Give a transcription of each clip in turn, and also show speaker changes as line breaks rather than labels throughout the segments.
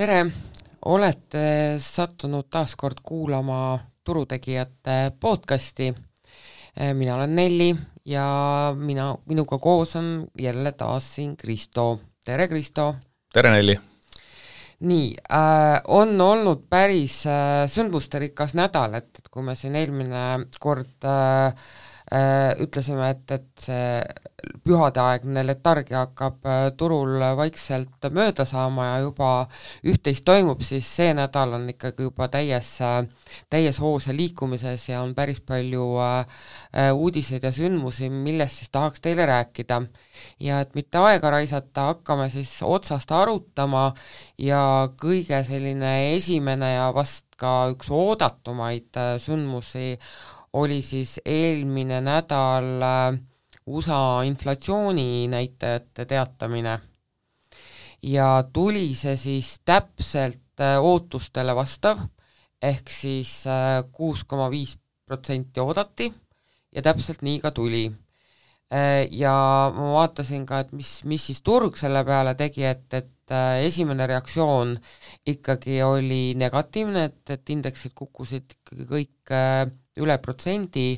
Tere, olete sattunud taas kord kuulama Turutegijate podcasti. Mina olen Nelli ja minuga koos on jälle taas siin Kristo. Tere, Kristo!
Tere, Nelli!
Nii, on olnud päris sündmusterikas nädal, et kui me siin eelmine kord ütlesime, et see pühadeaegne letargia hakkab turul vaikselt mööda saama ja juba üht-teist toimub, siis see nädal on ikkagi juba täies hoos ja liikumises ja on päris palju uudiseid ja sündmusi, millest siis tahaks teile rääkida. Ja et mitte aega raisata, hakkame siis otsast arutama ja kõige selline esimene ja vast ka üks oodatumaid sündmusi oli siis eelmine nädal USA inflatsiooni näitajate teatamine. Ja tuli see siis täpselt ootustele vastav, ehk siis 6,5% oodati ja täpselt nii ka tuli. Ja ma vaatasin ka, et mis siis turg selle peale tegi, et esimene reaktsioon ikkagi oli negatiivne, et indeksid kukkusid ikkagi kõik üle protsendi,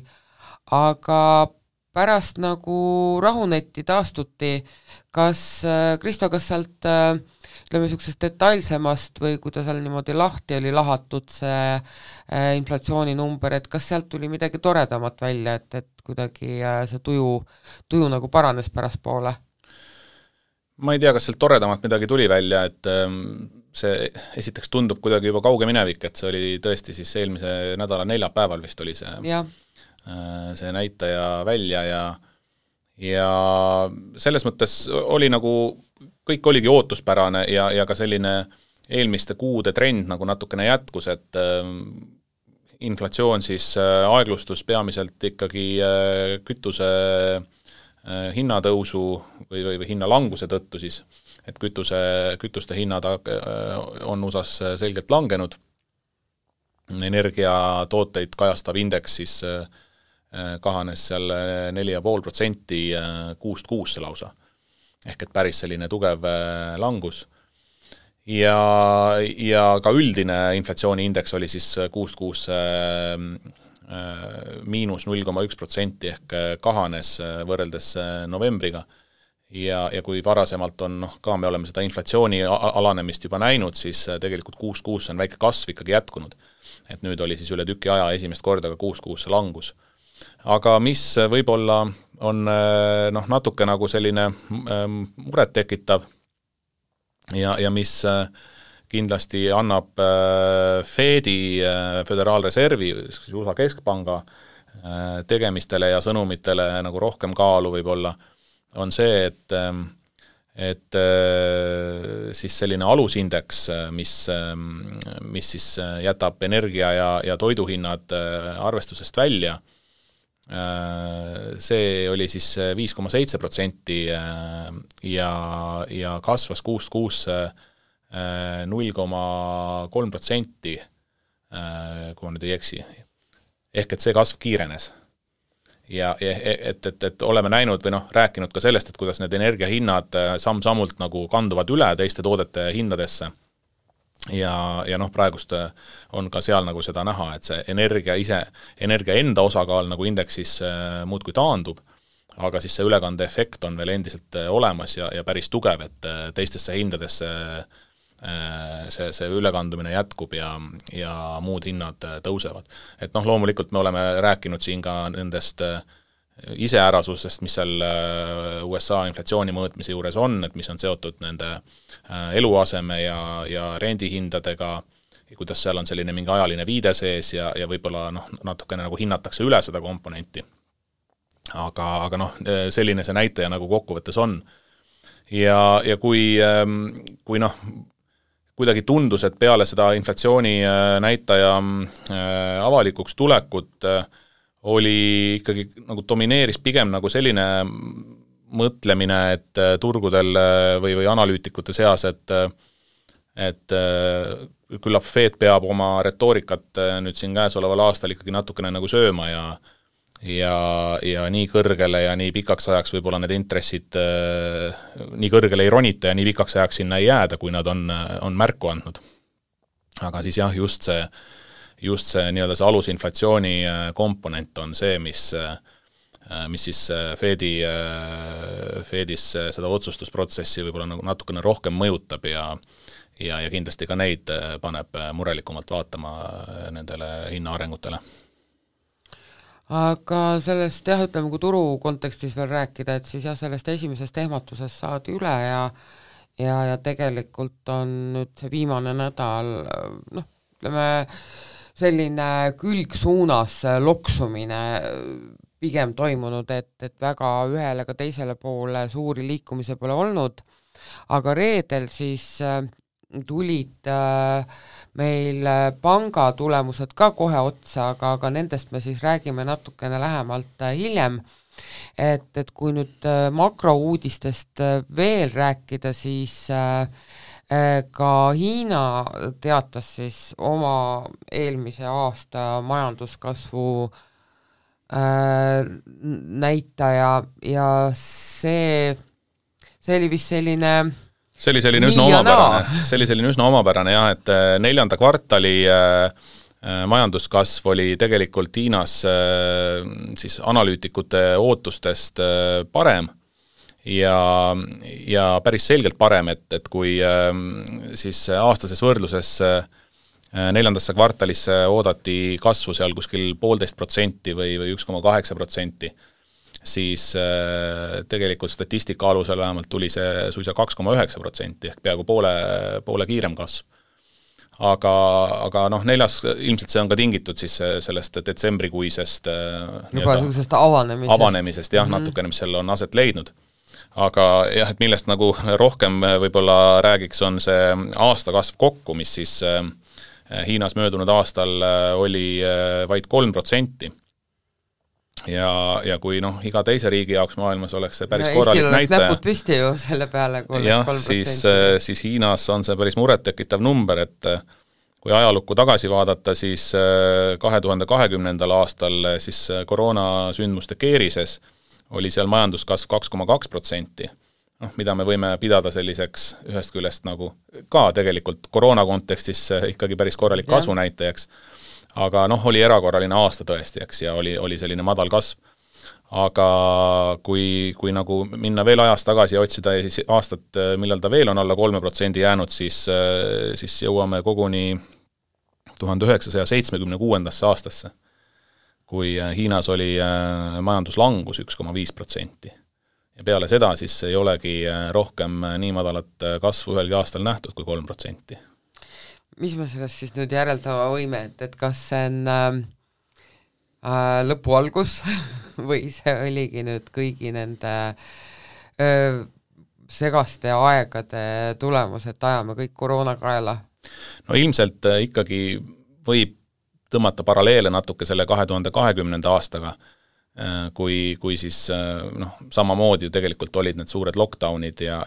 aga pärast nagu rahunetti taastuti. Kristo, kas sealt ütleme niisugusest detailsemast või kui ta seal niimoodi lahti oli lahatud see inflatsiooni number, et kas sealt tuli midagi toredamat välja, et kuidagi see tuju nagu paranes pärastpoole?
Ma ei tea, kas sealt toredamat midagi tuli välja, et see esiteks tundub kuidagi juba kauge minevik, et see oli tõesti siis eelmise nädala neljapäeval vist oli see näitaja välja ja selles mõttes oli nagu, kõik oligi ootuspärane ja ka selline eelmiste kuude trend nagu natukene jätkus, et inflatsioon siis aeglustus peamiselt ikkagi kütuse hinnatõusu või hinnalanguse tõttu siis, et kütuste hinnad on USAs selgelt langenud. Energiatooteid kajastav indeks siis kahanes seal 4,5% kuust kuusse lausa. Ehk et päris selline tugev langus. Ja ka üldine inflatsiooniindeks oli siis kuust kuusse miinus 0,1% ehk kahanes võrreldes novembriga. Ja kui varasemalt on, ka me oleme seda inflatsiooni alanemist juba näinud, siis tegelikult kuust kuusse on väike kasv ikkagi jätkunud. Et nüüd oli siis üle tüki aja esimest korda ka kuust kuusse langus. Aga mis võib-olla on natuke nagu selline muret tekitav ja mis kindlasti annab Fedi, Föderaalreservi, USA Keskpanga tegemistele ja sõnumitele nagu rohkem kaalu võib-olla, on see, et siis selline alusindeks, mis siis jätab energia ja toiduhinnad arvestusest välja, see oli siis 5,7% ja kasvas kuust kuusse 0,3%, kui ma nüüd ei eksi. Ehk et see kasv kiirenes. Ja et oleme näinud või rääkinud ka sellest, et kuidas need energiahinnad samm-sammult nagu kanduvad üle teiste toodete hindadesse. Ja praegust on ka seal nagu seda näha, et see energia enda osakaal nagu indeksis muudkui taandub, aga siis see ülekande efekt on veel endiselt olemas ja päris tugev, et teistesse hindadesse see ülekandumine jätkub ja muud hinnad tõusevad. Et loomulikult me oleme rääkinud siin ka nendest iseärasusest, mis seal USA inflatsiooni mõõtmise juures on, et mis on seotud nende eluaseme ja rendihindadega, kuidas seal on selline mingi ajaline viide sees ja võib-olla natukene nagu hinnatakse üle seda komponenti. Aga selline see näitaja nagu kokkuvõttes on. Ja kui kuidagi tundus, et peale seda inflatsiooni näitaja avalikuks tulekut oli ikkagi nagu domineeris pigem nagu selline mõtlemine, et turgudel või analüütikute seas, et küllap Fed peab oma retoorikat nüüd siin käesoleval aastal ikkagi natukene nagu sööma ja nii kõrgele ja nii pikaks ajaks võib-olla need intressid nii kõrgele ei ronita ja nii pikaks ajaks sinna ei jääda, kui nad on märku andnud. Aga siis jah, just see nii-öelda see alusinflatsiooni komponent on see, mis siis Fedis seda otsustusprotsessi võib-olla nagu natukene rohkem mõjutab ja kindlasti ka neid paneb murelikumalt vaatama nendele hinnaarengutele.
Aga sellest jah, ütleme, kui turu kontekstis veel rääkida, et siis jah, sellest esimesest ehmatusest saadi üle ja tegelikult on nüüd see viimane nädal, noh, ütleme, selline külgsuunas loksumine pigem toimunud, et väga ühele ka teisele poole suuri liikumise pole olnud, aga reedel siis tulid meil panga tulemused ka kohe otsa, aga nendest me siis räägime natukene lähemalt hiljem, et kui nüüd makrouudistest veel rääkida, siis ka Hiina teatas siis oma eelmise aasta majanduskasvu näitaja ja see oli vist selline
see oli selline üsna omapärane jah, et 4. kvartali majanduskasv oli tegelikult Hiinas siis analüütikute ootustest parem ja päris selgelt parem, et kui siis aastases võrdluses 4. kvartalisse oodati kasvu seal kuskil 1,5% või 1,8%, siis tegelikult statistika alusel vähemalt tuli see suisa 2,9% ehk peaaegu poole kiirem kasv. Aga noh, 4. ilmselt see on ka tingitud siis sellest detsembrikuisest
juba sellisest avanemisest
jah, natukene, mis seal on aset leidnud. Aga jah, et millest nagu rohkem võib-olla räägiks, on see aastakasv kokku, mis siis Hiinas möödunud aastal oli vaid 3%. Ja kui noh, iga teise riigi jaoks maailmas oleks see päris korralik näitaja.
Eestil oleks näpud püsti ju selle peale, kui oleks
3%. Siis Hiinas on see päris murettekitav number, et kui ajalukku tagasi vaadata, siis 2020. aastal siis koroonasündmuste keerises oli seal majanduskasv 2,2%, mida me võime pidada selliseks ühest küljest nagu ka tegelikult koroona kontekstis ikkagi päris korralik kasvunäitajaks. Aga oli erakorraline aasta tõesti, eks, ja oli selline madal kasv. Aga kui nagu minna veel ajas tagasi ja otsida ja siis aastat, millal ta veel on alla 3% jäänud, siis jõuame koguni 1976. aastasse, kui Hiinas oli majanduslangus 1,5%. Ja peale seda siis ei olegi rohkem nii madalat kasvu ühelgi aastal nähtud kui 3%.
Mis me sellest siis nüüd järeldama võime, et kas see on lõpu algus või see oligi nüüd kõigi nende segaste aegade tulemus, et ajame kõik koroonakaela?
No ilmselt ikkagi võib tõmmata paralleele natuke selle 2020. aastaga, kui siis samamoodi ju tegelikult olid need suured lockdownid ja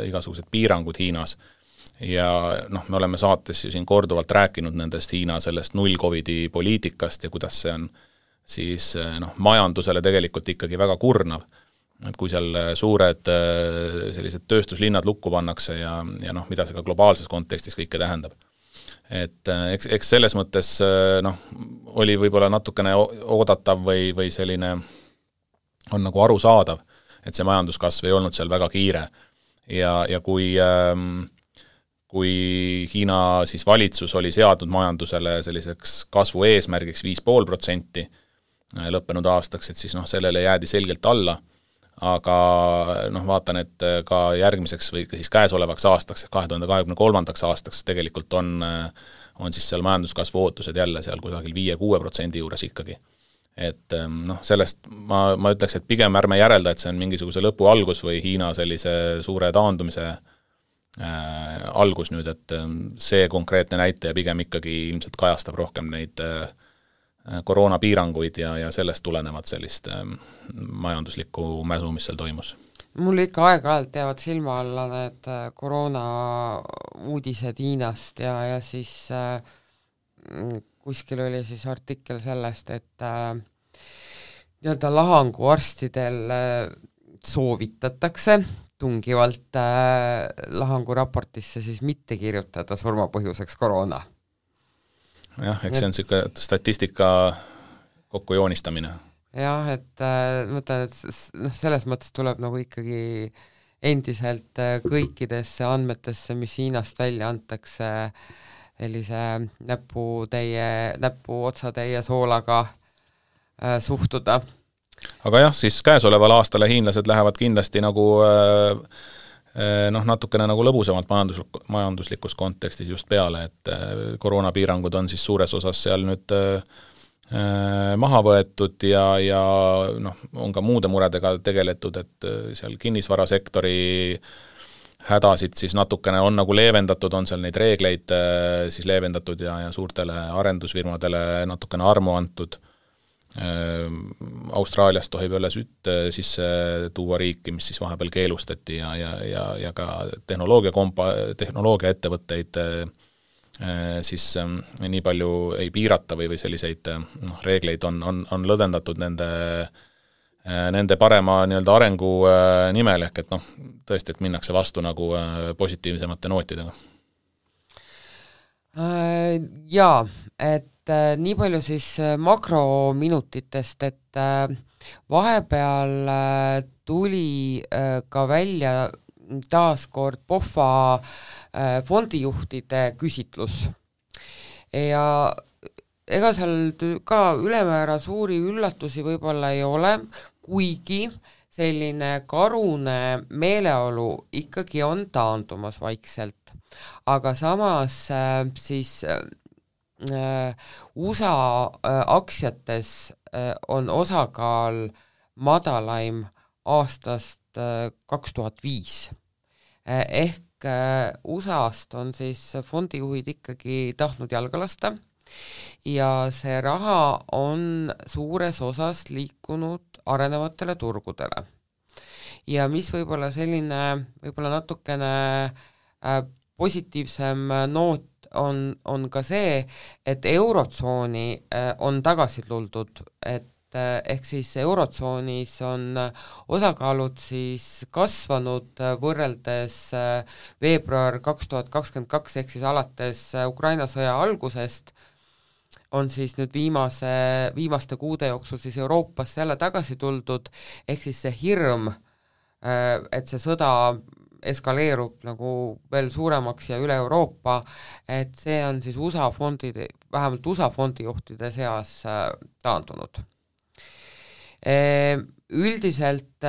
igasugused piirangud Hiinas. Ja me oleme saates ju siin korduvalt rääkinud nendest Hiina sellest null-Covidi poliitikast ja kuidas see on siis majandusele tegelikult ikkagi väga kurnav. Et kui seal suured sellised tööstuslinnad lukku pannakse ja mida see ka globaalses kontekstis kõike tähendab. Et eks selles mõttes oli võib-olla natukene oodatav või selline on nagu arusaadav, et see majanduskasv ei olnud seal väga kiire. Ja kui Hiina siis valitsus oli seadnud majandusele selliseks kasvu eesmärgiks 5,5% lõppenud aastaks, et siis sellele jäädi selgelt alla, aga vaatan, et ka järgmiseks või siis käesolevaks aastaks, 2023. aastaks tegelikult on siis seal majanduskasvu ootused jälle seal kusagil 5-6% juures ikkagi. Et sellest ma ütleks, et pigem ärme järelda, et see on mingisuguse lõpu algus või Hiina sellise suure taandumise algus nüüd, et see konkreetne näitaja pigem ikkagi ilmselt kajastab rohkem neid koroonapiiranguid ja sellest tulenevad sellist majanduslikku mäsu, mis seal toimus.
Mul ikka aeg-ajalt jäävad silma alla need koroona uudised Hiinast ja siis kuskil oli siis artikkel sellest, et nii-öelda lahanguarstidel soovitatakse tungivalt lahanguraportisse siis mitte kirjutada surmapõhjuseks koroona.
Jah, eks see on siuke statistika kokkujoonistamine.
Jah, et mõtlen, et selles mõttes tuleb nagu ikkagi endiselt kõikidesse andmetesse, mis Hiinast välja antakse, sellise näpu otsatäie soolaga suhtuda.
Aga jah, siis käesoleval aastale hiinlased lähevad kindlasti nagu natukene nagu lõbusemalt majanduslikus kontekstis just peale, et koroonapiirangud on siis suures osas seal nüüd maha võetud ja on ka muude muredega tegeletud, et seal kinnisvarasektori hädasid siis natukene on nagu leevendatud, on seal neid reegleid siis leevendatud ja suurtele arendusfirmadele natukene armu antud. Austraaliast tohib jälle sütt sisse tuua riiki, mis siis vahepeal keelustati ja ka tehnoloogia ettevõtteid siis nii palju ei piirata või selliseid reegleid on lõdvendatud nende parema nii-öelda arengu nimel, ehk et tõesti, et minnakse vastu nagu positiivsemate nootidega.
Jaa, et nii palju siis makrominutitest, et vahepeal tuli ka välja taaskord POFA fondijuhtide küsitlus ja ega seal ka ülemäära suuri üllatusi võib-olla ei ole, kuigi selline karune meeleolu ikkagi on taandumas vaikselt, aga samas siis USA aktsiates on osakaal madalaim aastast 2005. Ehk USA-st on siis fondijuhid ikkagi tahtnud jalga lasta ja see raha on suures osas liikunud arenevatele turgudele. Ja mis võib-olla selline, võib-olla natukene positiivsem noot on ka see, et eurotsooni on tagasi tuldud, et ehk siis eurotsoonis on osakaalud siis kasvanud võrreldes veebruar 2022 ehk siis alates Ukraina sõja algusest on siis nüüd viimaste kuude jooksul siis Euroopas jälle tagasi tuldud, ehk siis see hirm, et see sõda eskaleerub nagu veel suuremaks ja üle Euroopa, et see on siis vähemalt USA fondijuhtide seas taandunud. Üldiselt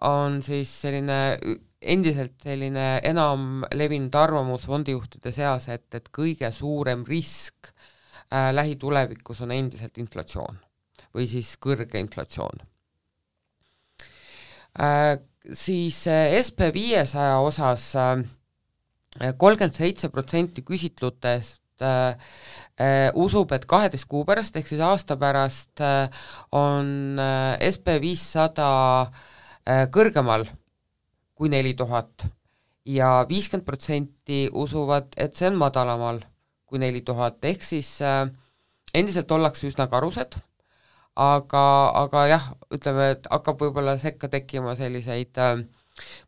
on siis endiselt selline enam levinud arvamus fondijuhtide seas, et kõige suurem risk lähitulevikus on endiselt inflatsioon või siis kõrge inflatsioon. Siis SP500 osas 37% küsitlutest usub, et 12 kuu pärast ehk siis aasta pärast on SP500 kõrgemal kui 4000 ja 50% usuvad, et see on madalamal kui 4000, ehk siis endiselt ollakse üsna karused, aga jah, ütleme, et hakkab võib-olla sekka tekkima selliseid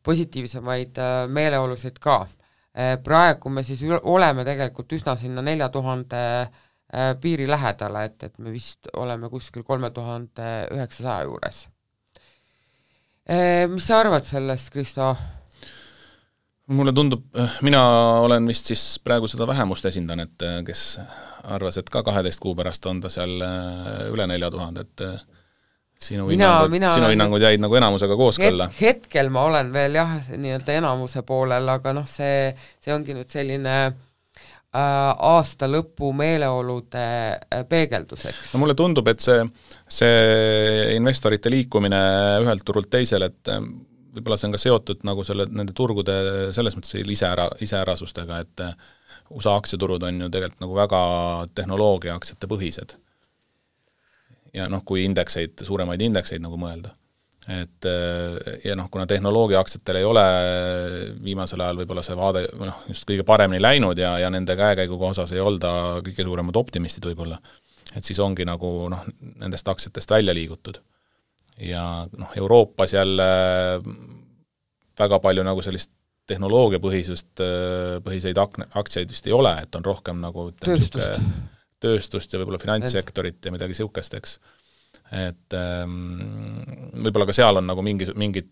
positiivsemaid meeleolusid ka. Praegu me siis oleme tegelikult üsna sinna 4000 piiri lähedale, et me vist oleme kuskil 3900 juures. Mis sa arvad sellest, Kristo?
Mulle tundub, mina olen vist siis praegu seda vähemust esindan, et kes arvas, et ka 12 kuu pärast on ta seal üle 4000, et sinu hinnangud jäid nagu enamusega kooskõlla.
Hetkel ma olen veel jah, nii-öelda enamuse poolel, aga see ongi nüüd selline aasta lõpu meeleolude peegelduseks.
No mulle tundub, et see investorite liikumine ühelt turult teisel, et võib-olla see on ka seotud nagu nende turgude selles mõttes iseärasustega, et USA aktsiaturud on ju tegelikult nagu väga tehnoloogia aktsiate põhised. Ja kui suuremaid indekseid nagu mõelda. Ja kuna tehnoloogia aktsiatel ei ole viimasel ajal võib-olla see vaade just kõige paremini läinud ja nende käekäiguga osas ei olda kõige suuremad optimistid võib-olla, et siis ongi nagu nendest aktsiatest välja liigutud. ja noh, Euroopas jälle väga palju nagu sellist tehnoloogiapõhiseid aktsiaid vist ei ole, et on rohkem nagu tööstust ja võib-olla finantssektorit ja midagi sihukest, eks. Et võib-olla ka seal on nagu mingid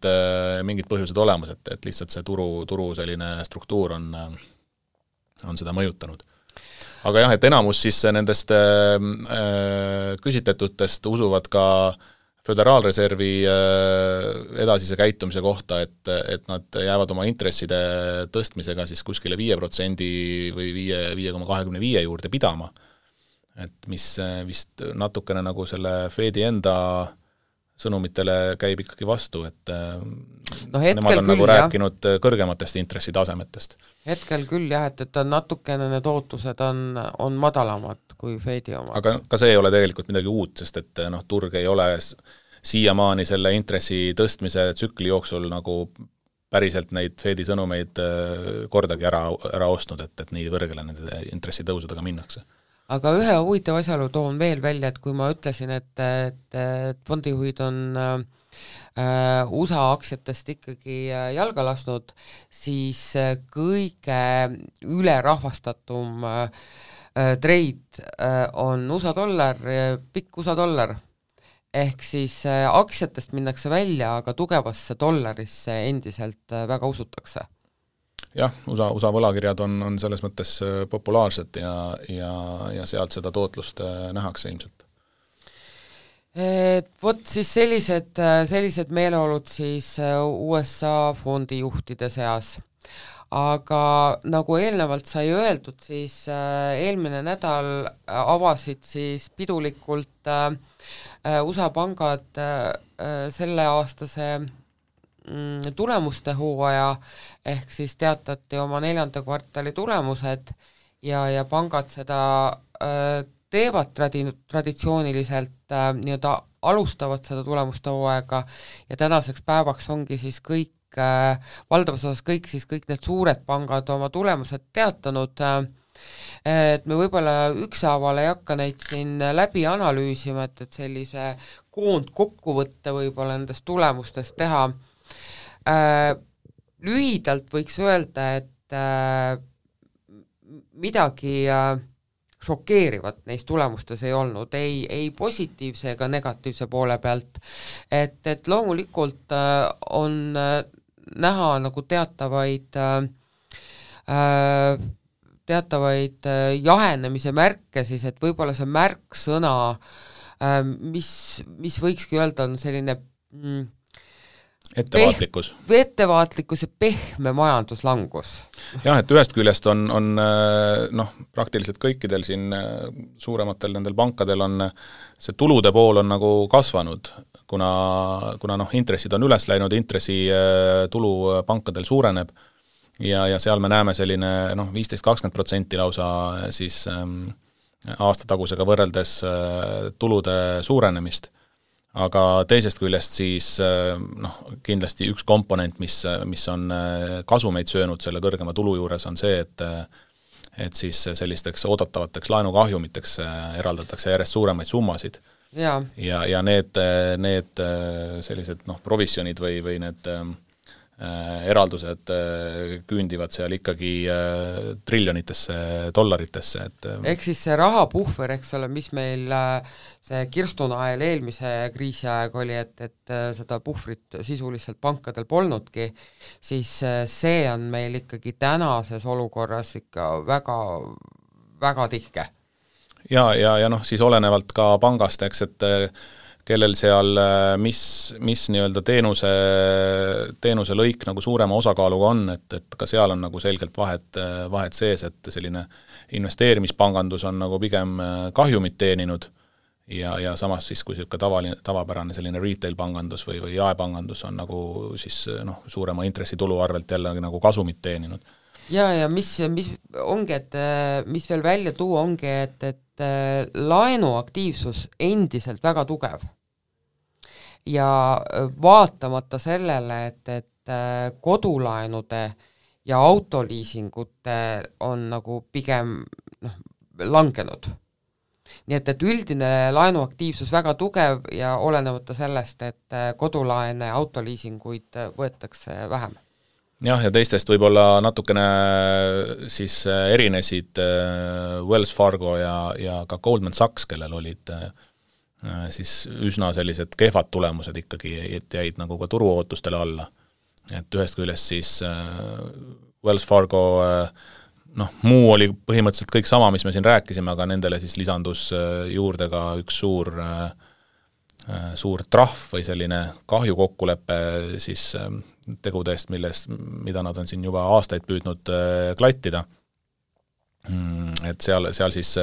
põhjused olemas, et lihtsalt see turu selline struktuur on seda mõjutanud. Aga jah, et enamus siis nendest küsitletutest usuvad ka Föderaalreservi edasise käitumise kohta, et nad jäävad oma intresside tõstmisega siis kuskile 5% või 5,25 juurde pidama. Et mis vist natukene nagu selle Fedi enda sõnumitele käib ikkagi vastu, et nemad on nagu rääkinud kõrgematest intressitasemetest.
Hetkel küll jah, et natukene need ootused on madalamad kui Fedi oma.
Aga ka see ei ole tegelikult midagi uut, sest et turg ei ole siiamaani selle intressi tõstmise tsükli jooksul nagu päriselt neid Fedi sõnumeid kordagi ära ostnud, et nii kõrgele nende intressitõusudega minnakse.
Aga ühe huvitav asjaolu toon veel välja, et kui ma ütlesin, et fondijuhid on USA aktsiatest ikkagi jalga lasnud, siis kõige ülerahvastatum trade on USA dollar, pikk USA dollar. Ehk siis aktsiatest minnakse välja, aga tugevasse dollarisse endiselt väga usutakse.
Jah, USA võlakirjad on selles mõttes populaarsed ja sealt seda tootlust nähakse ilmselt.
Vot siis sellised meeleolud siis USA fondijuhtide seas. Aga nagu eelnevalt sai öeldud, siis eelmine nädal avasid siis pidulikult USA pangad selle aastase tulemuste hooaja, ehk siis teatati oma 4. kvartali tulemused ja pangad seda teevad traditsiooniliselt, nii-öelda alustavad seda tulemuste hooaega ja tänaseks päevaks ongi siis valdavas osas kõik need suured pangad oma tulemused teatanud, et me võib-olla ükshaaval ei hakka neid siin läbi analüüsima, et sellise koondkokkuvõtte võib-olla nendest tulemustest teha. Lühidalt võiks öelda, et midagi šokeerivat neis tulemustes ei olnud, ei positiivse ega negatiivse poole pealt, et loomulikult on näha nagu teatavaid jahenemise märke siis, et võib-olla see märksõna, mis võikski öelda, on selline ettevaatlikkus ja pehme majanduslangus.
Jah, et ühest küljest on praktiliselt kõikidel siin suurematel nendel pankadel on see tulude pool on nagu kasvanud, kuna intressid on üles läinud, intressitulu pankadel suureneb ja seal me näeme selline 15-20% lausa siis aastatagusega võrreldes tulude suurenemist. Aga teisest küljest siis kindlasti üks komponent, mis on kasumeid söönud selle kõrgema tulu juures, on see, et siis sellisteks oodatavateks laenukahjumiteks eraldatakse järjest suuremaid summasid. Ja need sellised provisjonid või need eraldused küündivad seal ikkagi triljonitesse dollaritesse.
Ehk siis see rahapuhver, eks ole, mis meil see kirstunael eelmise kriisi aeg oli, et seda puhvrit sisuliselt pankadel polnudki, siis see on meil ikkagi tänases olukorras ikka väga, väga tihke.
Ja siis olenevalt ka pangast, eks, et kellel seal mis nii-öelda teenuse lõik nagu suurema osakaaluga on, et ka seal on nagu selgelt vahet sees, et selline investeerimispangandus on nagu pigem kahjumit teeninud ja samas siis, kui tavapärane selline retail-pangandus või jaepangandus on nagu siis suurema intressitulu arvelt jälle nagu kasumit teeninud.
Ja mis ongi, et mis veel välja tuua ongi, et laenuaktiivsus endiselt väga tugev ja vaatamata sellele, et kodulaenude ja autoliisingute on nagu pigem langenud. nii et üldine laenuaktiivsus väga tugev ja olenemata sellest, et kodulaene ja autoliisinguid võetakse vähem.
Jah, ja teistest võib-olla natukene siis erinesid Wells Fargo ja ka Goldman Sachs, kellel olid siis üsna sellised kehvad tulemused ikkagi, et jäid nagu ka turuootustele alla. Et ühest küljest siis Wells Fargo muu oli põhimõtteliselt kõik sama, mis me siin rääkisime, aga nendele siis lisandus juurde ka üks suur trahv või selline kahjukokkulepe siis tegudest, mida nad on siin juba aastaid püüdnud klattida. Et seal siis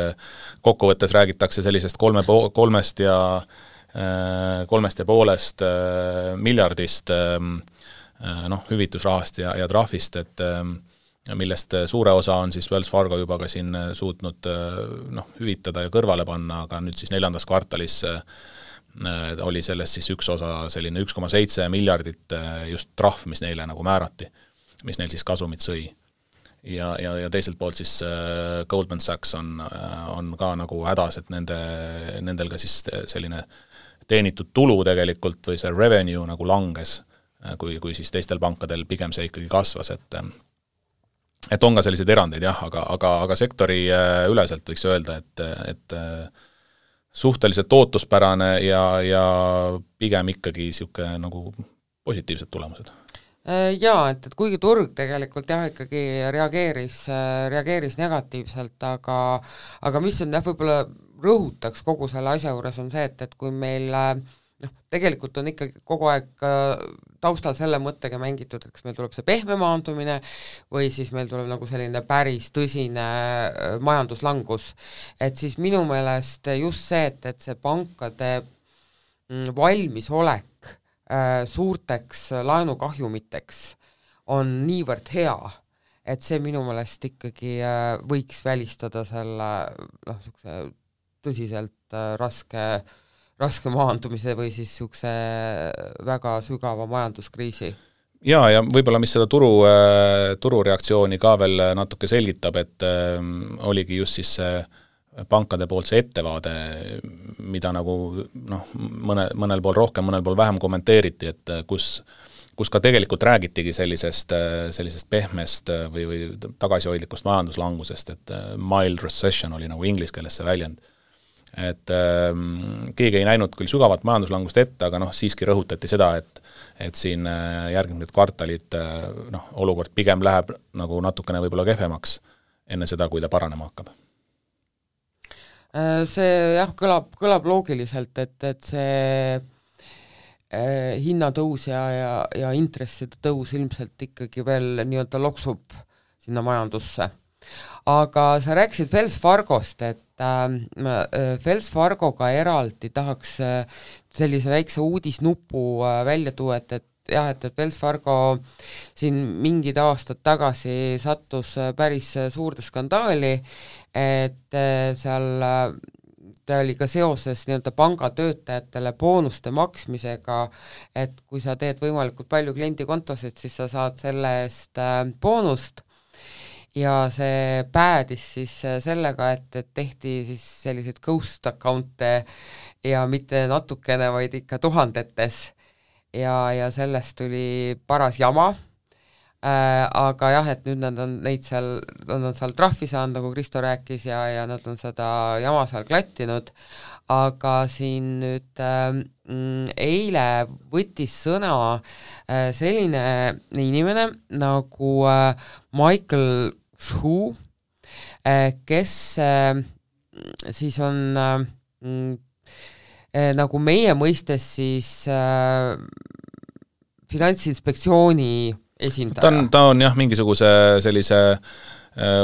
kokkuvõttes räägitakse sellisest 3,5 miljardist hüvitusrahast ja trahvist, et millest suure osa on siis Wells Fargo juba ka siin suutnud hüvitada ja kõrvale panna, aga nüüd siis 4. kvartalis oli sellest siis üks osa selline 1,7 miljardit just trahv, mis neile nagu määrati, mis neil siis kasumit sõi. Ja teiselt poolt siis Goldman Sachs on ka nagu hädas, et nendel ka siis selline teenitud tulu tegelikult või see revenue nagu langes, kui siis teistel pankadel pigem see ikkagi kasvas, et on ka selliseid erandeid jah, aga sektori üleselt võiks öelda, et suhteliselt ootuspärane ja pigem ikkagi siuke nagu positiivsed tulemused.
Jaa, et kuigi turg tegelikult jah, ikkagi reageeris negatiivselt, aga mis on jah, võib-olla rõhutaks kogu selle asja juures on see, et kui meil tegelikult on ikkagi kogu aeg taustal selle mõttega mängitud, et kas meil tuleb see pehme maandumine või siis meil tuleb nagu selline päris tõsine majanduslangus. Et siis minu meelest just see, et see pankade valmisolek suurteks laenukahjumiteks on niivõrd hea, et see minu meelest ikkagi võiks välistada selle tõsiselt raske maandumise või siis niisuguse väga sügava majanduskriisi.
Ja võib-olla mis seda turureaktsiooni ka veel natuke selgitab, et oligi just siis pankade poolt see ettevaade, mida nagu mõnel pool rohkem, mõnel pool vähem kommenteeriti, et kus ka tegelikult räägitigi sellisest pehmest või tagasihoidlikust majanduslangusest, et mild recession oli nagu inglise keeles see väljend. Et keegi ei näinud küll sügavat majanduslangust ette, aga siiski rõhutati seda, et siin järgmised kvartalid olukord pigem läheb nagu natukene võib-olla kehvemaks enne seda, kui ta paranema hakkab.
See jah, kõlab loogiliselt, et see hinnatõus ja intresside tõus ilmselt ikkagi veel nii-öelda loksub sinna majandusse. Aga sa rääkisid Wells Fargost, et Wells Fargoga eraldi tahaks sellise väikse uudisnupu välja tuua, et Wells Fargo siin mingid aastad tagasi sattus päris suurde skandaali, et seal ta oli ka seoses nii-öelda pangatöötajatele boonuste maksmisega, et kui sa teed võimalikult palju kliendikontosid, siis sa saad selle eest boonust. Ja see päädis siis sellega, et tehti siis selliseid ghost account'e ja mitte natukene, vaid ikka tuhandetes ja sellest tuli paras jama, aga jah, et nüüd nad on seal trahvi saanud, nagu Kristo rääkis, ja nad on seda jama seal klattinud, aga siin nüüd eile võttis sõna selline inimene nagu Michael Xu, kes siis on nagu meie mõistes siis Finantsinspektsiooni esindaja.
Ta on jah mingisuguse sellise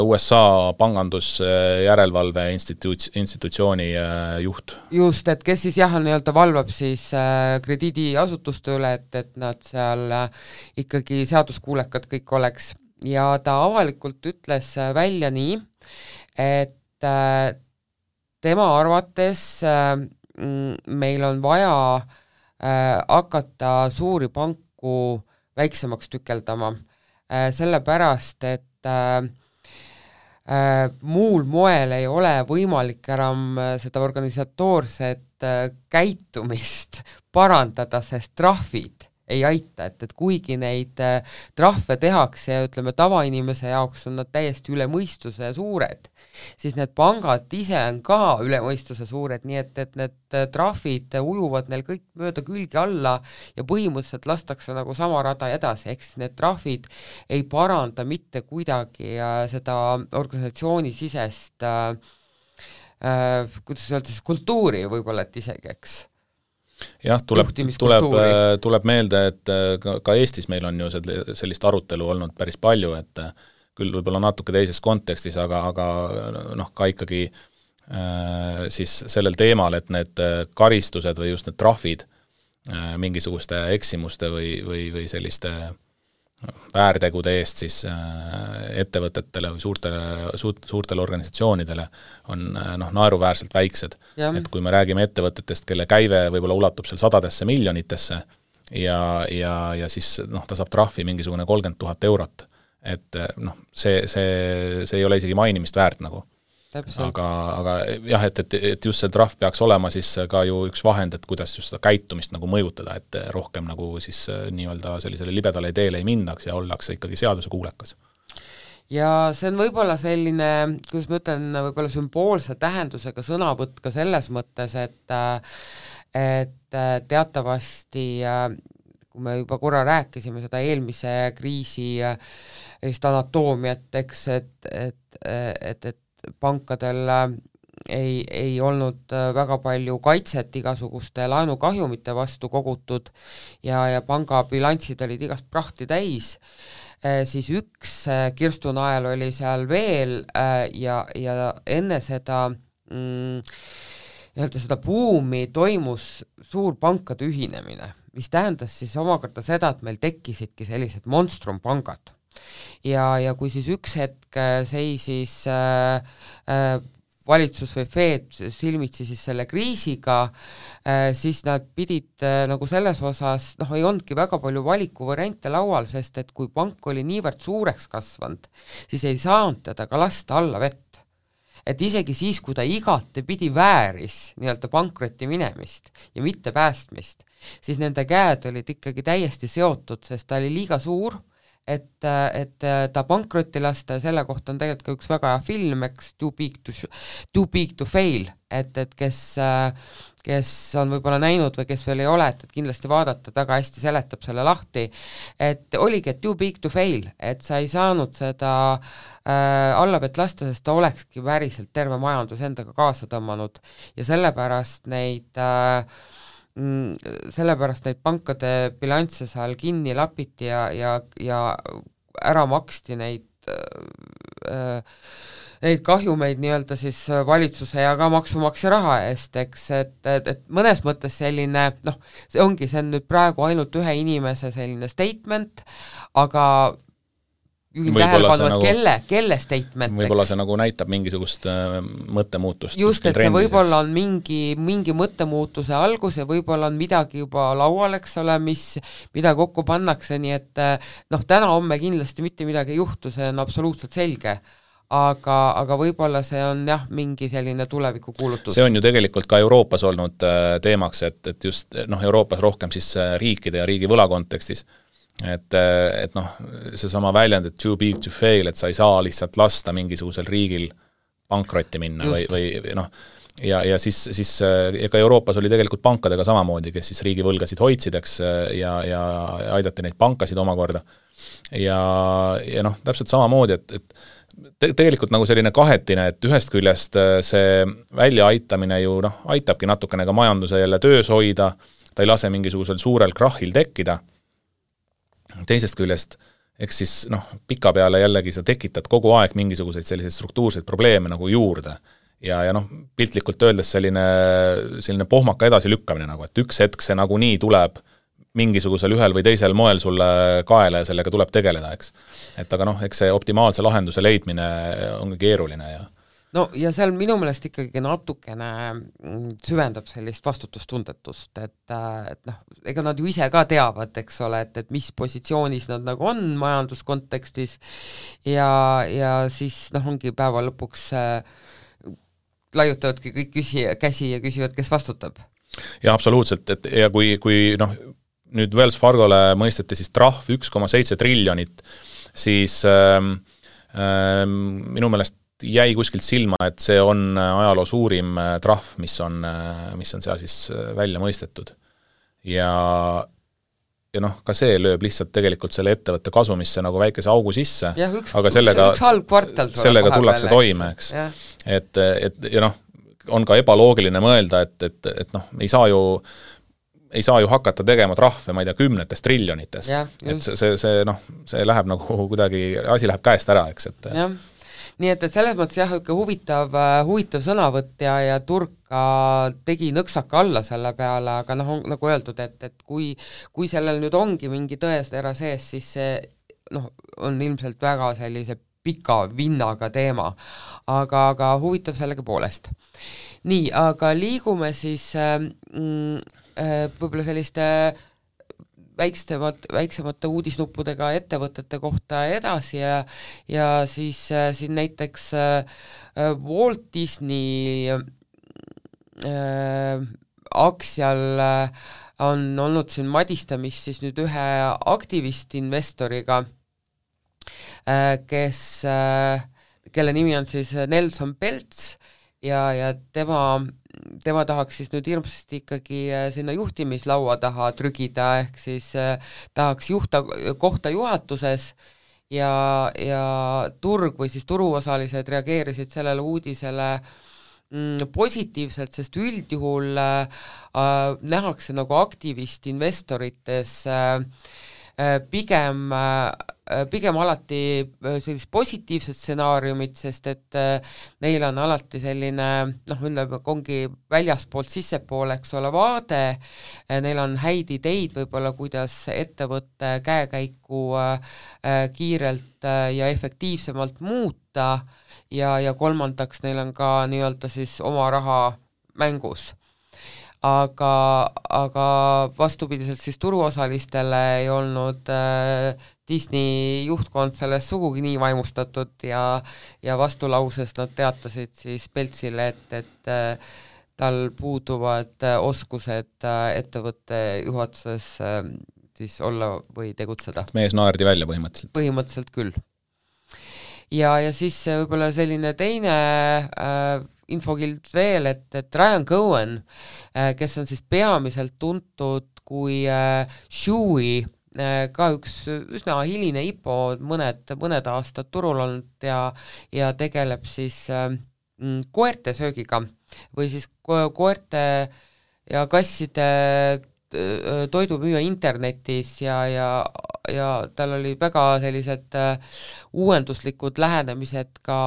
USA pangandusjärelevalve institutsiooni juht.
Just, et kes siis jah nii-öelda valvab siis krediidiasutuste üle, et nad seal ikkagi seaduskuulekad kõik oleks. Ja ta avalikult ütles välja nii, et tema arvates meil on vaja hakata suuri panku väiksemaks tükeldama, sellepärast, et muul moel ei ole võimalik enam seda organisatoorset käitumist parandada, sest trahvid ei aita, et kuigi neid trahve tehakse ja ütleme, tavainimese jaoks on nad täiesti üle mõistuse suured, siis need pangad ise on ka üle mõistuse suured, nii et need trahvid ujuvad neil kõik mööda külgi alla ja põhimõtteliselt lastakse nagu sama rada edasi, ehk siis need trahvid ei paranda mitte kuidagi seda organisatsiooni sisest kuidas öelda siis kultuuri võib-olla, et isegi, eks.
Jah, tuleb meelde, et ka Eestis meil on ju sellist arutelu olnud päris palju, et küll võib-olla natuke teises kontekstis, aga ka ikkagi siis sellel teemal, et need karistused või just need trahvid mingisuguste eksimuste või selliste väärtegude eest siis ettevõtetele või suurtele organisatsioonidele on naeruväärselt väiksed. Et kui me räägime ettevõtetest, kelle käive võib-olla ulatub seal sadadesse miljonitesse ja siis ta saab trahvi mingisugune 30 000 eurot, et see ei ole isegi mainimist väärt nagu. Aga jah, et just see trahv peaks olema siis ka ju üks vahend, et kuidas just seda käitumist nagu mõjutada, et rohkem nagu siis nii-öelda sellisele libedale teele ei mindaks ja ollakse ikkagi seaduse kuulekas.
Ja see on võib-olla selline, kuidas ma ütlen, võib-olla sümboolse tähendusega sõnavõtt ka selles mõttes, et teatavasti, kui me juba korra rääkisime seda eelmise kriisi anatoomiat, eks, et pankadel ei olnud väga palju kaitset igasuguste laenukahjumite vastu kogutud ja panga bilanssid olid igast prahti täis, siis üks kirstunael oli seal veel ja enne seda seda buumi toimus suur pankade ühinemine, mis tähendas siis omakorda seda, et meil tekkisidki sellised monstrumpangad. Ja kui siis üks hetk seisis valitsus või Fed silmitsi siis selle kriisiga, siis nad pidid nagu selles osas, ei olnudki väga palju valikuvariante laual, sest et kui pank oli niivõrd suureks kasvanud, siis ei saanud teda ka lasta alla vett. Et isegi siis, kui ta igate pidi vääris nii-öelda pankrotti minemist ja mitte päästmist, siis nende käed olid ikkagi täiesti seotud, sest ta oli liiga suur, et ta pankrotti lasta ja selle kohta on tegelikult ka üks väga hea film, eks, Too Big to Fail, et kes on võib-olla näinud või kes veel ei ole, et kindlasti vaadata, väga hästi seletab selle lahti, et oligi, et Too Big to Fail, et sa ei saanud seda allavett lasta, sest ta olekski päriselt terve majandus endaga kaasa tõmmanud ja sellepärast neid pankade bilansse seal kinni lapiti ja ära maksti neid kahjumeid nii-öelda siis valitsuse ja ka maksumaksja raha eest, eks, et mõnes mõttes selline, see on nüüd praegu ainult ühe inimese selline statement, aga juhin tähelepanu, et kelle statement.
Võib-olla see nagu näitab mingisugust mõttemuutust.
Just, et see võib-olla on mingi mõttemuutuse algus ja võib-olla on midagi juba laual, eks ole, mida kokku pannakse, nii et täna-homme kindlasti mitte midagi ei juhtu, see on absoluutselt selge. Aga võib-olla see on mingi selline tulevikukuulutus.
See on ju tegelikult ka Euroopas olnud teemaks, et just Euroopas rohkem siis riikide ja riigi võla kontekstis. Et seesama väljend, et too big to fail, et sa ei saa lihtsalt lasta mingisugusel riigil pankrotti minna ja siis ega Euroopas oli tegelikult pankadega samamoodi, kes siis riigivõlgasid hoidsideks ja aidati neid pankasid omakorda ja täpselt samamoodi, et tegelikult nagu selline kahetine, et ühest küljest see väljaaitamine ju aitabki natukene ka majanduse jälle töös hoida, ta ei lase mingisugusel suurel krahhil tekkida. Teisest küljest, eks siis pika peale jällegi sa tekitad kogu aeg mingisuguseid selliseid struktuurseid probleeme nagu juurde ja piltlikult öeldes selline pohmaka edasi lükkamine nagu, et üks hetk see nagu nii tuleb mingisugusel ühel või teisel moel sulle kaela ja sellega tuleb tegeleda, eks. Et aga eks see optimaalse lahenduse leidmine ongi keeruline ja
no ja seal minu meelest ikkagi natukene süvendab sellist vastutustundetust, et noh, ega nad ju ise ka teavad, eks ole, et mis positsioonis nad nagu on majanduskontekstis ja siis noh, ongi päeva lõpuks laiutavadki kõik käsi ja küsivad, kes vastutab.
Ja absoluutselt, et ja kui noh, nüüd Wells Fargole mõisteti siis trahv 1,7 triljonit, siis minu meelest jäi kuskilt silma, et see on ajaloo suurim trahv, mis on seal siis välja mõistetud. Ja noh, ka see lööb lihtsalt tegelikult selle ettevõtte kasumisse nagu väikese augu sisse, aga üks halb kvartal sellega tullakse toime, eks. Et ja noh, on ka ebaloogiline mõelda, et noh, ei saa ju hakata tegema trahve, ma ei tea, 10 triljonites. Et see noh, see läheb nagu kuidagi, asi läheb käest ära, eks, et
jah. Nii et selles mõttes jah, huvitav sõnavõtt ja turg ka tegi nõksaka alla selle peale, aga noh, nagu öeldud, et kui sellel nüüd ongi mingi tõestera sees, siis see noh, on ilmselt väga sellise pika vinnaga teema, aga huvitav sellega poolest. Nii, aga liigume siis võib-olla selliste väiksemate uudisnuppudega ettevõtete kohta edasi ja siis siin näiteks Walt Disney aktsial on olnud siin madistamist siis nüüd ühe aktivistinvestoriga, kelle nimi on siis Nelson Peltz ja tema tahaks siis nüüd hirmsasti ikkagi sinna juhtimislaua taha trügida, ehk siis tahaks kohta juhatuses ja turg või siis turuosalised reageerisid sellele uudisele positiivselt, sest üldjuhul nähakse nagu aktivistinvestorites pigem alati sellist positiivset stsenaariumit, sest et neil on alati selline, noh, ongi väljaspoolt sissepoole, eks ole, vaade, neil on häid ideid võib-olla, kuidas ettevõtte käekäiku kiirelt ja efektiivsemalt muuta ja kolmandaks neil on ka nii-öelda siis oma raha mängus. Aga vastupidiselt siis turuosalistele ei olnud Disney juhtkond sellest sugugi nii vaimustatud ja vastulauses nad teatasid siis Peltsile, et tal puuduvad oskused ettevõtte juhatuses siis olla või tegutseda.
Mees naerdi välja põhimõtteliselt.
Põhimõtteliselt küll. Ja siis võib-olla selline teine infokild veel, et Ryan Cohen, kes on siis peamiselt tuntud kui Chewy, ka üks üsna hiline IPO, mõned aastad turul olnud ja tegeleb siis koerte söögiga või siis koerte ja kasside toidumüüa internetis ja tal oli väga sellised uuenduslikud lähenemised ka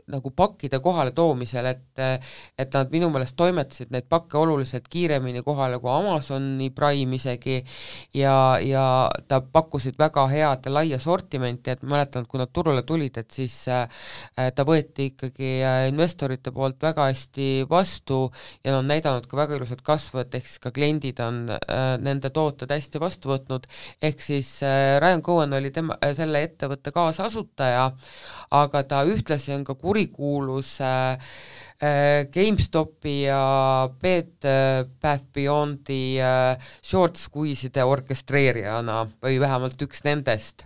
nagu pakkide kohale toomisel, et nad minu meelest toimetasid neid pakke oluliselt kiiremini kohale kui Amazoni Prime isegi ja ta pakkusid väga head ja laia sortimenti, et mäletan, kui nad turule tulid, et siis ta võeti ikkagi investorite poolt väga hästi vastu ja on näidanud ka väga ilusat kasvu, et ehk siis ka kliendid on nende tooted hästi vastu võtnud, ehk siis Ryan Cohen oli selle ettevõtte kaasasutaja, aga ta ühtlasi on ka kurikuulus GameStopi ja Bed Bath Beyondi short squeeze'ide orkestreerijana või vähemalt üks nendest.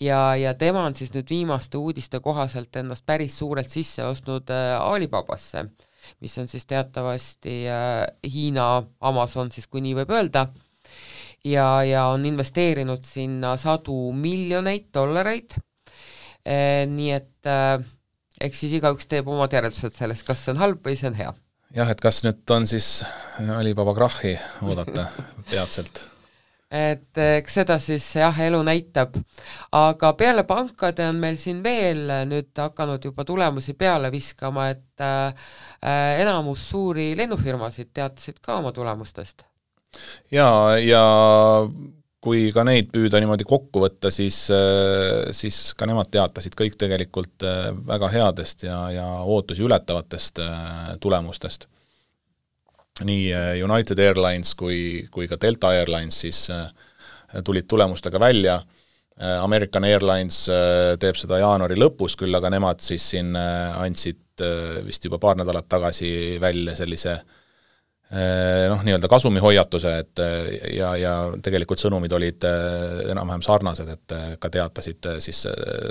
Ja tema on siis nüüd viimaste uudiste kohaselt ennast päris suurelt sisse ostnud Alibabasse, mis on siis teatavasti Hiina Amazon, siis kui nii võib öelda, ja on investeerinud sinna $100 miljoneid, nii et eks siis igaüks teeb omad järeldused sellest, kas see on halb või see on hea.
Jah, et kas nüüd on siis Alibaba krahhi oodata peatselt?
Et eks seda siis jah, elu näitab, aga peale pankade on meil siin veel nüüd hakanud juba tulemusi peale viskama, et enamus suuri lennufirmasid teatasid ka oma tulemustest.
Ja kui ka neid püüda niimoodi kokku võtta, siis ka nemad teatasid kõik tegelikult väga headest ja ootusi ületavatest tulemustest. Nii United Airlines kui ka Delta Airlines siis tulid tulemustega välja. American Airlines teeb seda jaanuari lõpus, küll aga nemad siis siin andsid vist juba paar nädalat tagasi välja sellise nii-öelda kasumihoiatuse, et ja tegelikult sõnumid olid enam-vähem sarnased, et ka teatasid siis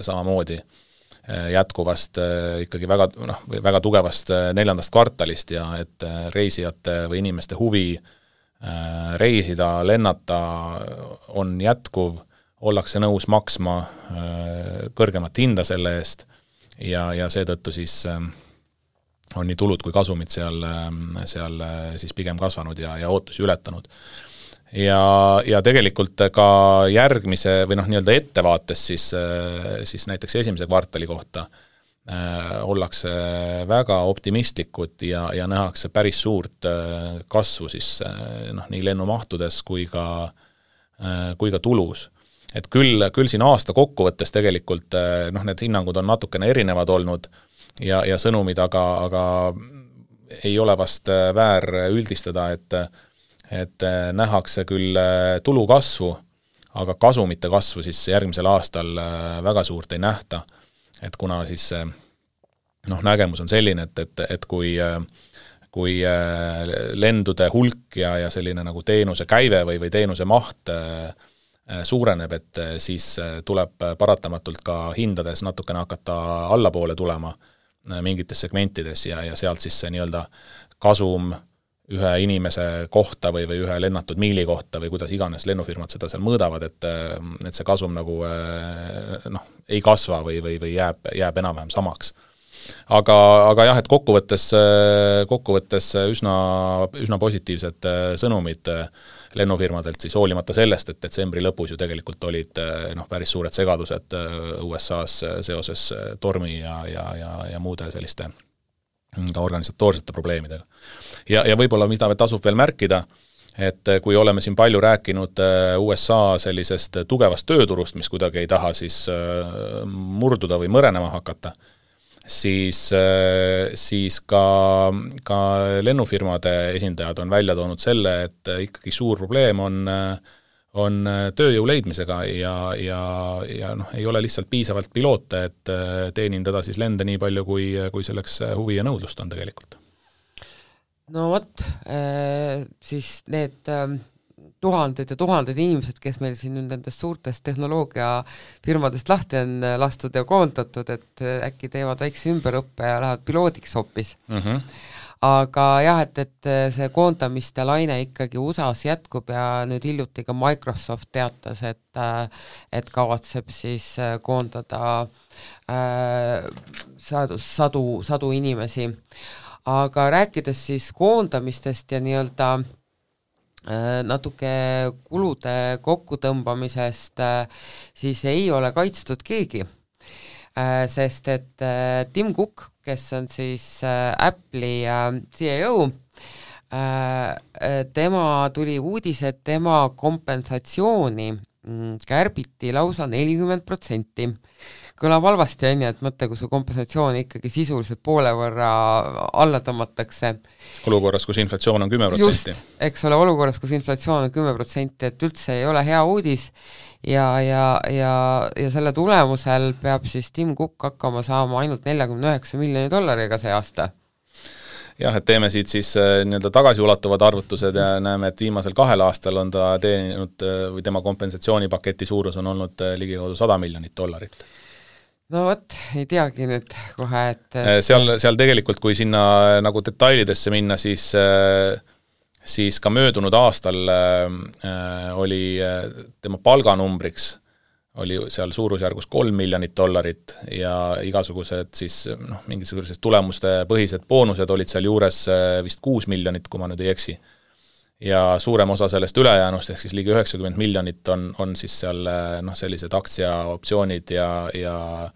samamoodi jätkuvast ikkagi väga tugevast 4. kvartalist ja et reisijate või inimeste huvi reisida, lennata on jätkuv, ollakse nõus maksma kõrgemat hinda selle eest ja seetõttu siis on nii tulud kui kasumid seal siis pigem kasvanud ja ootusi ületanud. Ja tegelikult ka järgmise või nii-öelda ettevaates siis näiteks esimese kvartali kohta ollakse väga optimistlikud ja nähakse päris suurt kasvu siis nii lennumahtudes kui ka tulus. Et küll siin aasta kokkuvõttes tegelikult need hinnangud on natukene erinevad olnud ja sõnumid, aga ei ole vast väär üldistada, et nähakse küll tulu kasvu, aga kasumite kasvu siis järgmisel aastal väga suurt ei nähta. Et kuna siis nägemus on selline, et kui lendude hulk ja selline nagu teenuse käive või teenuse maht suureneb, et siis tuleb paratamatult ka hindades natukene hakata allapoole tulema mingites segmentides ja sealt siis see nii-öelda kasum ühe inimese kohta või ühe lennatud miili kohta või kuidas iganes lennufirmad seda seal mõõdavad, et see kasum nagu ei kasva või jääb enam-vähem samaks. Aga jah, et kokkuvõttes üsna positiivsed sõnumid lennufirmadelt siis hoolimata sellest, et detsembri lõpus ju tegelikult olid päris suured segadused USA-s seoses tormi ja muude selliste ka organisatoorsete probleemidega. Ja võib-olla mida tasub veel märkida, et kui oleme siin palju rääkinud USA sellisest tugevast tööturust, mis kuidagi ei taha siis murduda või mõrenema hakata, siis ka lennufirmade esindajad on välja toonud selle, et ikkagi suur probleem on tööjõu leidmisega ja ei ole lihtsalt piisavalt piloote, et teenindada siis lende nii palju, kui selleks huvi ja nõudlust on tegelikult.
No vot, siis need tuhanded ja tuhanded inimesed, kes meil siin nendest suurtest tehnoloogiafirmadest lahti on lastud ja koondatud, et äkki teevad väikse ümberõppe ja lähevad piloodiks hoopis. Aga jah, et see koondamiste laine ikkagi USA-s jätkub ja nüüd hiljuti ka Microsoft teatas, et kavatseb siis koondada sadu inimesi. Aga rääkides siis koondamistest ja nii-öelda natuke kulude kokkutõmbamisest, siis ei ole kaitstud keegi. Sest et Tim Cook, kes on siis Apple'i CEO, tema tuli uudis, et tema kompensatsiooni kärbiti lausa 40%. Kõlab halvasti, et mõtle, kui su kompensatsioon ikkagi sisuliselt poole võrra alla tõmmatakse.
Olukorras, kus inflatsioon on 10%.
Just, eks ole, olukorras, kus inflatsioon on 10%, et üldse ei ole hea uudis ja selle tulemusel peab siis Tim Cook hakkama saama ainult $49 miljoni see aasta.
Jah, et teeme siit siis nii-öelda tagasiulatuvad arvutused ja näeme, et viimasel 2 aastal on ta teeninud või tema kompensatsioonipaketi suurus on olnud ligikaudu $100 miljonit.
No vot, ei teagi nüüd kohe, et
seal tegelikult, kui sinna nagu detailidesse minna, siis ka möödunud aastal oli tema palganumbriks oli seal suurusjärgus $3 miljonit ja igasugused siis mingisugused tulemuste põhised boonused olid seal juures vist 6 miljonit, kui ma nüüd ei eksi. Ja suurem osa sellest ülejäänust, ehk siis ligi 90 miljonit on siis seal sellised aktsiaoptsioonid ja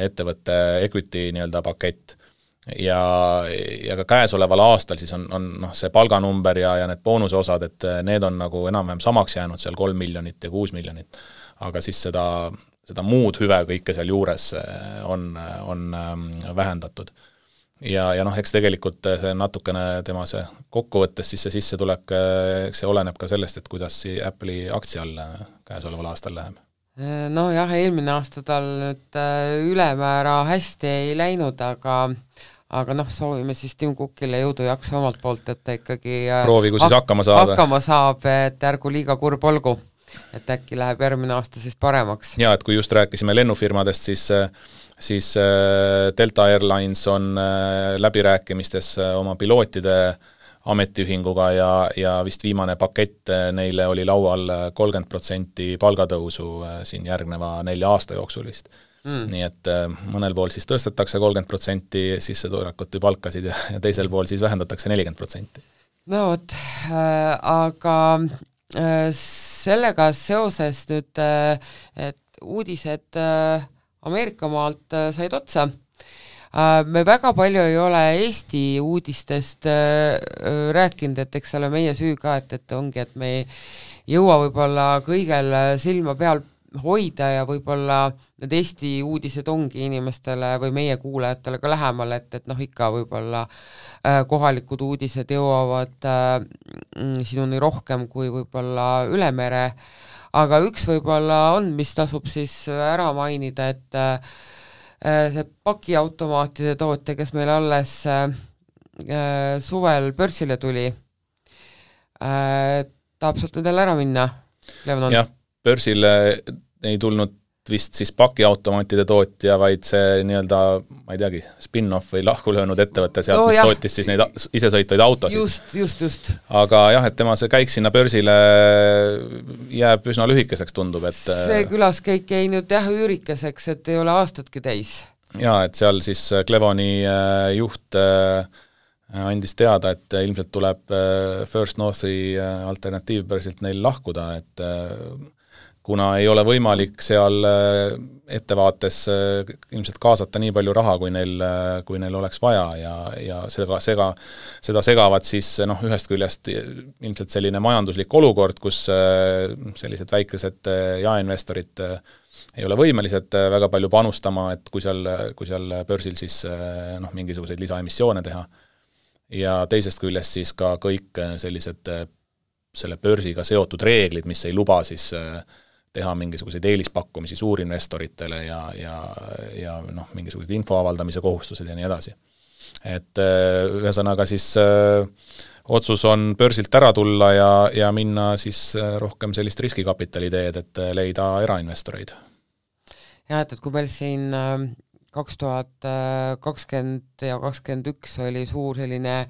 ettevõtte equity nii-öelda pakett. ja ka käesoleval aastal siis on noh, see palganumber ja need boonuse osad, et need on nagu enam-vähem samaks jäänud seal 3 miljonit ja 6 miljonit, aga siis seda muud hüve kõike seal juures on vähendatud. Ja noh, eks tegelikult see natukene tema see kokkuvõttes siis see sissetulek, eks see oleneb ka sellest, et kuidas Apple'i aktsial käesoleval aastal läheb.
No jah, eelmine aasta tal nüüd ülemäära hästi ei läinud, aga noh, soovime siis Tim Cookile jõudu jaksu omalt poolt, et ta ikkagi
proovigu siis hakkama
saab, et ärgu liiga kurb olgu, et äkki läheb järgmine aasta siis paremaks.
Ja, et kui just rääkisime lennufirmadest, siis Delta Airlines on läbirääkimistes oma pilootide ametiühinguga ja vist viimane pakett neile oli laual 30% palgatõusu siin järgneva 4 aasta jooksulist. Nii et mõnel pool siis tõstetakse 30% sissetulekut või palkasid ja teisel pool siis vähendatakse 40%.
No vot, aga sellega seoses nüüd, et uudised Ameerika maalt said otsa, me väga palju ei ole Eesti uudistest rääkinud, et eks ole meie süü ka, et ongi, et me ei jõua võib-olla kõigel silma peal hoida ja võib-olla need Eesti uudised ongi inimestele või meie kuulajatele ka lähemal, et noh, ikka võib-olla kohalikud uudised jõuavad sinuni rohkem kui võib-olla üle mere, aga üks võib-olla on, mis tasub siis ära mainida, et see pakiautomaatide tootja, kes meil alles suvel börsile tuli, tahab sealt nüüd ära minna, Levanon?
Jah, börsile ei tulnud vist siis pakiautomaatide tootja, vaid see nii-öelda, ma ei teagi, spin-off või lahku löönud ettevõtte sealt, mis tootis siis neid isesõitvaid autosid.
Just.
Aga jah, et tema see käik sinna börsile jääb üsna lühikeseks, tundub, et
see külaskäik jäi nüüd jah üürikeseks, et ei ole aastatki täis.
Jaa, et seal siis Clevoni juht andis teada, et ilmselt tuleb First Northi alternatiivbörsilt neil lahkuda, et kuna ei ole võimalik seal ettevaates ilmselt kaasata nii palju raha, kui neil oleks vaja ja seda segavad siis noh, ühest küljest ilmselt selline majanduslik olukord, kus sellised väikesed jaeinvestorid ei ole võimelised väga palju panustama, et kui seal börsil siis noh, mingisuguseid lisaemissioone teha. Ja teisest küljest siis ka kõik sellised selle börsiga seotud reeglid, mis ei luba siis teha mingisuguseid eelispakkumisi suurinvestoritele ja noh, mingisugused info avaldamise kohustused ja nii edasi. Et ühesõnaga siis otsus on börsilt ära tulla ja minna siis rohkem sellist riskikapitali teed, et leida erainvestoreid.
Ja, et kui meil siin 2020 ja 2021 oli suur selline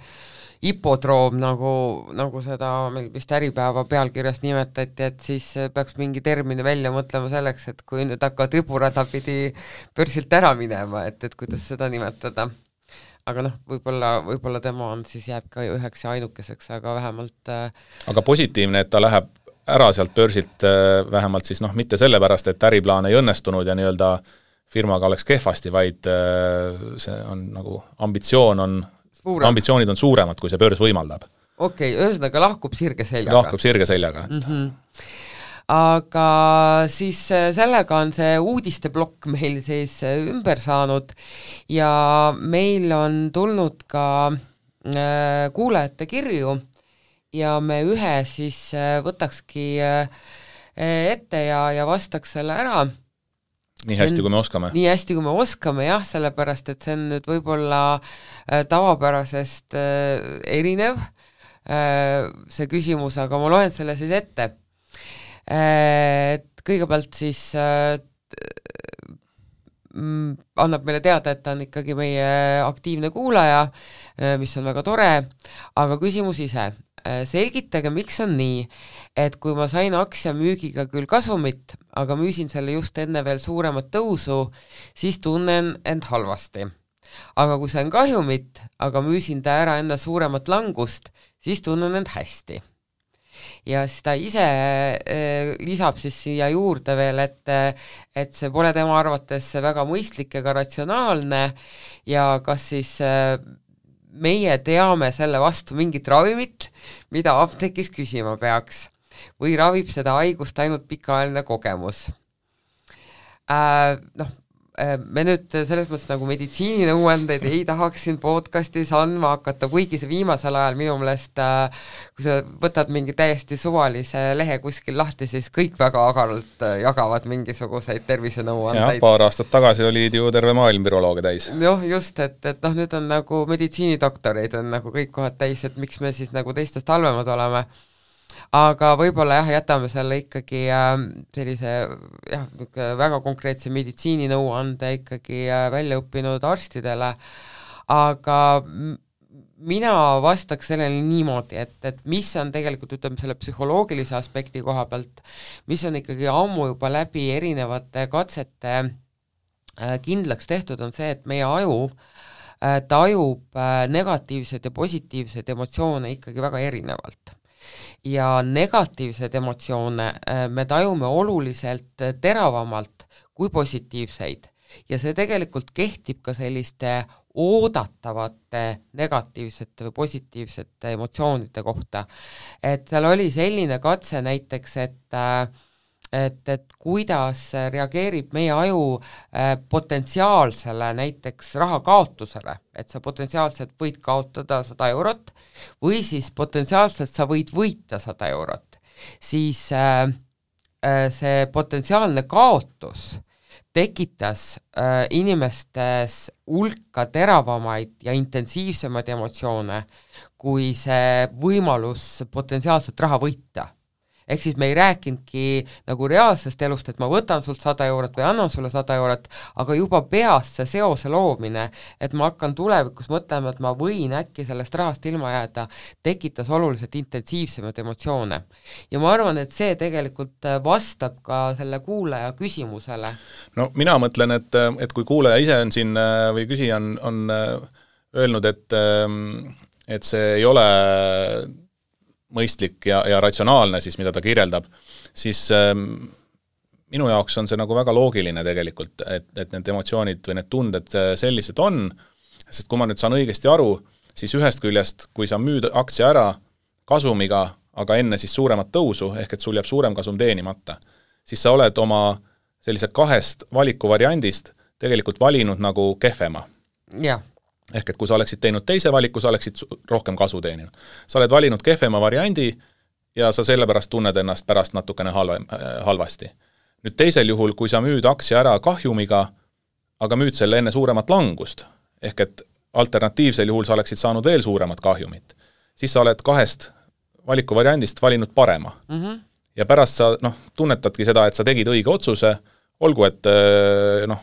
hipodroom, nagu seda meil vist Äripäeva pealkirjas nimetati, et siis peaks mingi termini välja mõtlema selleks, et kui nüüd hakkavad riburada pidi börsilt ära minema, et kuidas seda nimetada. Aga noh, võib-olla tema on siis jääb ka üheks ja ainukeseks, aga vähemalt
Aga positiivne, et ta läheb ära sealt börsilt vähemalt siis noh, mitte sellepärast, et äriplaan ei õnnestunud ja nii-öelda firmaga oleks kehvasti, vaid see on nagu ambitsioonid on suuremad, kui see börs võimaldab.
Okei, ühesõnaga lahkub sirge seljaga. Aga siis sellega on see uudisteblokk meil siis ümber saanud ja meil on tulnud ka kuulajate kirju ja me ühe siis võtakski ette ja vastaks selle ära.
Nii hästi, kui me oskame.
Nii hästi, kui me oskame, jah, sellepärast, et see on nüüd võib-olla tavapärasest erinev see küsimus, aga ma loen selle siis ette. Et kõigepealt siis annab meile teada, et ta on ikkagi meie aktiivne kuulaja, mis on väga tore, aga küsimus ise. Selgitage, miks on nii, et kui ma sain aktsia müügiga küll kasumit, aga müüsin selle just enne veel suuremat tõusu, siis tunnen end halvasti. Aga kui sain kahjumit, aga müüsin ta ära enne suuremat langust, siis tunnen end hästi. ja siis ta ise lisab siis siia juurde veel, et see pole tema arvates väga mõistlik ega ratsionaalne ja kas siis meie teame selle vastu mingit ravimit, mida apteegis küsima peaks või ravib seda haigust ainult pikaajaline kogemus. Me nüüd selles mõttes nagu meditsiininõuandeid ei tahaks siin podcastis andma hakata, kuigi see viimasel ajal minu meelest, kui sa võtad mingi täiesti suvalise lehe kuskil lahti, siis kõik väga agaralt jagavad mingisuguseid tervisenõuandeid.
Paar aastat tagasi olid ju terve maailm virolooge täis.
Just, et nüüd on nagu meditsiinidoktoreid on nagu kõik kohad täis, et miks me siis nagu teistest halvemad oleme. Aga võib-olla jätame selle ikkagi sellise väga konkreetse meditsiininõuande ikkagi välja õppinud arstidele, aga mina vastaks sellele niimoodi, et mis on tegelikult, ütleme, selle psühholoogilise aspekti koha pealt, mis on ikkagi ammu juba läbi erinevate katsete kindlaks tehtud, on see, et meie aju tajub negatiivseid ja positiivseid emotsioone ikkagi väga erinevalt. Ja negatiivseid emotsioone me tajume oluliselt teravamalt kui positiivseid ja see tegelikult kehtib ka selliste oodatavate negatiivsete või positiivsete emotsioonide kohta. Et seal oli selline katse näiteks, et kuidas reageerib meie aju potentsiaalsele näiteks rahakaotusele, et sa potentsiaalselt võid kaotada 100 eurot või siis potentsiaalselt sa võid võita 100 eurot, siis see potentsiaalne kaotus tekitas inimestes hulka teravamaid ja intensiivsemaid emotsioone kui see võimalus potentsiaalselt raha võita. Ehk siis me ei rääkinudki nagu reaalsest elust, et ma võtan sult 100 eurot või annan sulle 100 eurot, aga juba peas see seose loomine, et ma hakkan tulevikus mõtlema, et ma võin äkki sellest rahast ilma jääda, tekitas oluliselt intensiivsemaid emotsioone. Ja ma arvan, et see tegelikult vastab ka selle kuulaja küsimusele.
No mina mõtlen, et kui kuulaja ise on siin või küsija on öelnud, et see ei ole mõistlik ja ratsionaalne siis, mida ta kirjeldab, siis minu jaoks on see nagu väga loogiline tegelikult, et need emotsioonid või need tunded sellised on, sest kui ma nüüd saan õigesti aru, siis ühest küljest, kui sa müüd aktsia ära kasumiga, aga enne siis suuremat tõusu, ehk et sul jääb suurem kasum teenimata, siis sa oled oma sellise 2 valikuvariandist tegelikult valinud nagu kehvema.
Jah.
Ehk et kui sa oleksid teinud teise valiku, sa oleksid rohkem kasu teeninud. Sa oled valinud kehvema variandi ja sa sellepärast tunned ennast pärast natukene halvasti. Nüüd teisel juhul, kui sa müüd aktsia ära kahjumiga, aga müüd selle enne suuremat langust, ehk et alternatiivsel juhul sa oleksid saanud veel suuremat kahjumit, siis sa oled 2 valikuvariandist valinud parema. Ja pärast sa tunnetadki seda, et sa tegid õige otsuse, olgu, et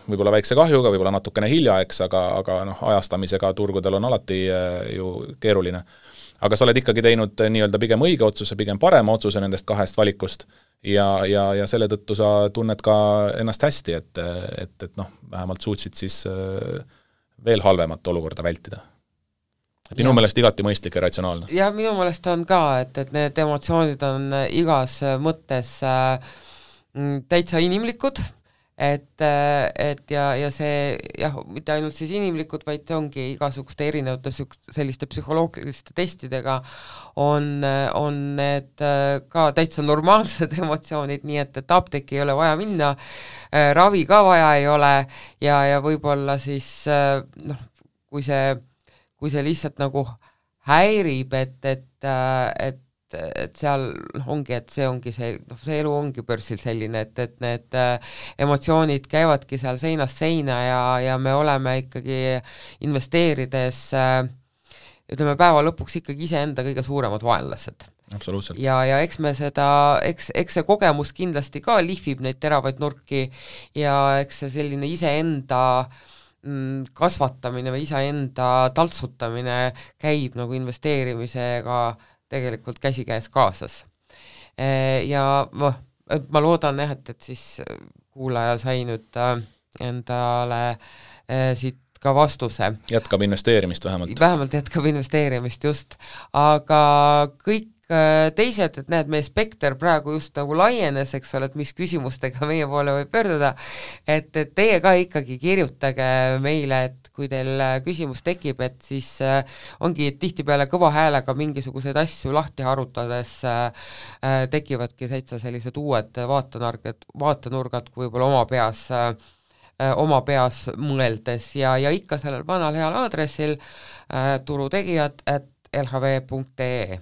võib-olla väikse kahjuga, võib-olla natukene hilja, eks, aga ajastamisega turgudel on alati ju keeruline. Aga sa oled ikkagi teinud nii-öelda pigem õige otsuse, pigem parema otsuse nendest 2 valikust ja selle tõttu sa tunned ka ennast hästi, et vähemalt suutsid siis veel halvemat olukorda vältida. Et minu meelest igati mõistlik ja ratsionaalne.
Ja minu meelest on ka, et need emotsioonid on igas mõttes täitsa inimlikud, et ja see mitte ainult siis inimlikud, vaid see ongi igasuguste erinevate selliste psühholoogiliste testidega on need ka täitsa normaalsed emotsioonid, nii et apteeki ei ole vaja minna, ravi ka vaja ei ole ja võib-olla siis kui see lihtsalt nagu häirib, et seal ongi, et see ongi see elu ongi börsil selline, et need emotsioonid käivadki seal seinast seina ja me oleme ikkagi investeerides, ütleme päeva lõpuks ikkagi iseenda kõige suuremad vaenlased.
Absoluutselt.
Ja eks me eks see kogemus kindlasti ka lihvib neid teravaid nurki ja eks see selline iseenda kasvatamine või iseenda taltsutamine käib nagu investeerimisega tegelikult käsikäes kaasas. Ja ma loodan, et siis kuulaja sai nüüd endale siit ka vastuse.
Jätkab investeerimist vähemalt.
Vähemalt jätkab investeerimist, just. Aga kõik teised, et näed, meie spekter praegu just nagu laienes, eks ole, et mis küsimustega meie poole võib pöörduda, et teie ka ikkagi kirjutage meile, et kui teil küsimus tekib, et siis ongi tihtipeale kõva häälega mingisuguseid asju lahti harutades tekivadki täitsa sellised uued vaatenurgad kui võib-olla oma peas mõeldes ja ikka sellel vanal heal aadressil turutegijad@lhv.ee.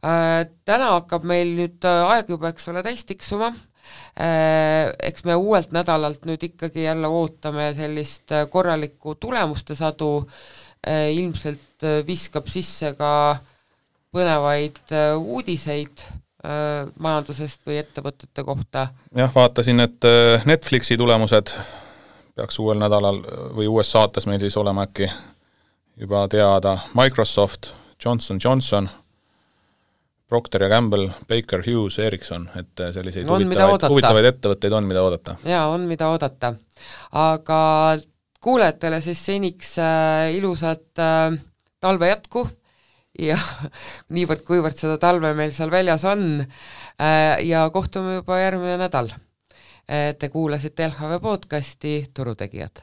Täna hakkab meil nüüd aeg juba, eks ole, täis tiksuma. Eks me uuelt nädalalt nüüd ikkagi jälle ootame sellist korralikku tulemuste sadu, ilmselt viskab sisse ka põnevaid uudiseid majandusest või ettevõtete kohta.
Jah, vaatasin, et Netflixi tulemused peaks uuel nädalal või uues saates meil siis olema äkki juba teada. Microsoft, Johnson & Johnson, Procter & Gamble, Baker Hughes, Ericsson, et selliseid huvitavaid ettevõtteid on, mida oodata.
Jaa, on mida oodata. Aga kuulajatele siis seniks ilusat talve jätku ja niivõrd-kuivõrd seda talve meil seal väljas on ja kohtume juba järgmine nädal. Te kuulasite LHV podcasti Turutegijad.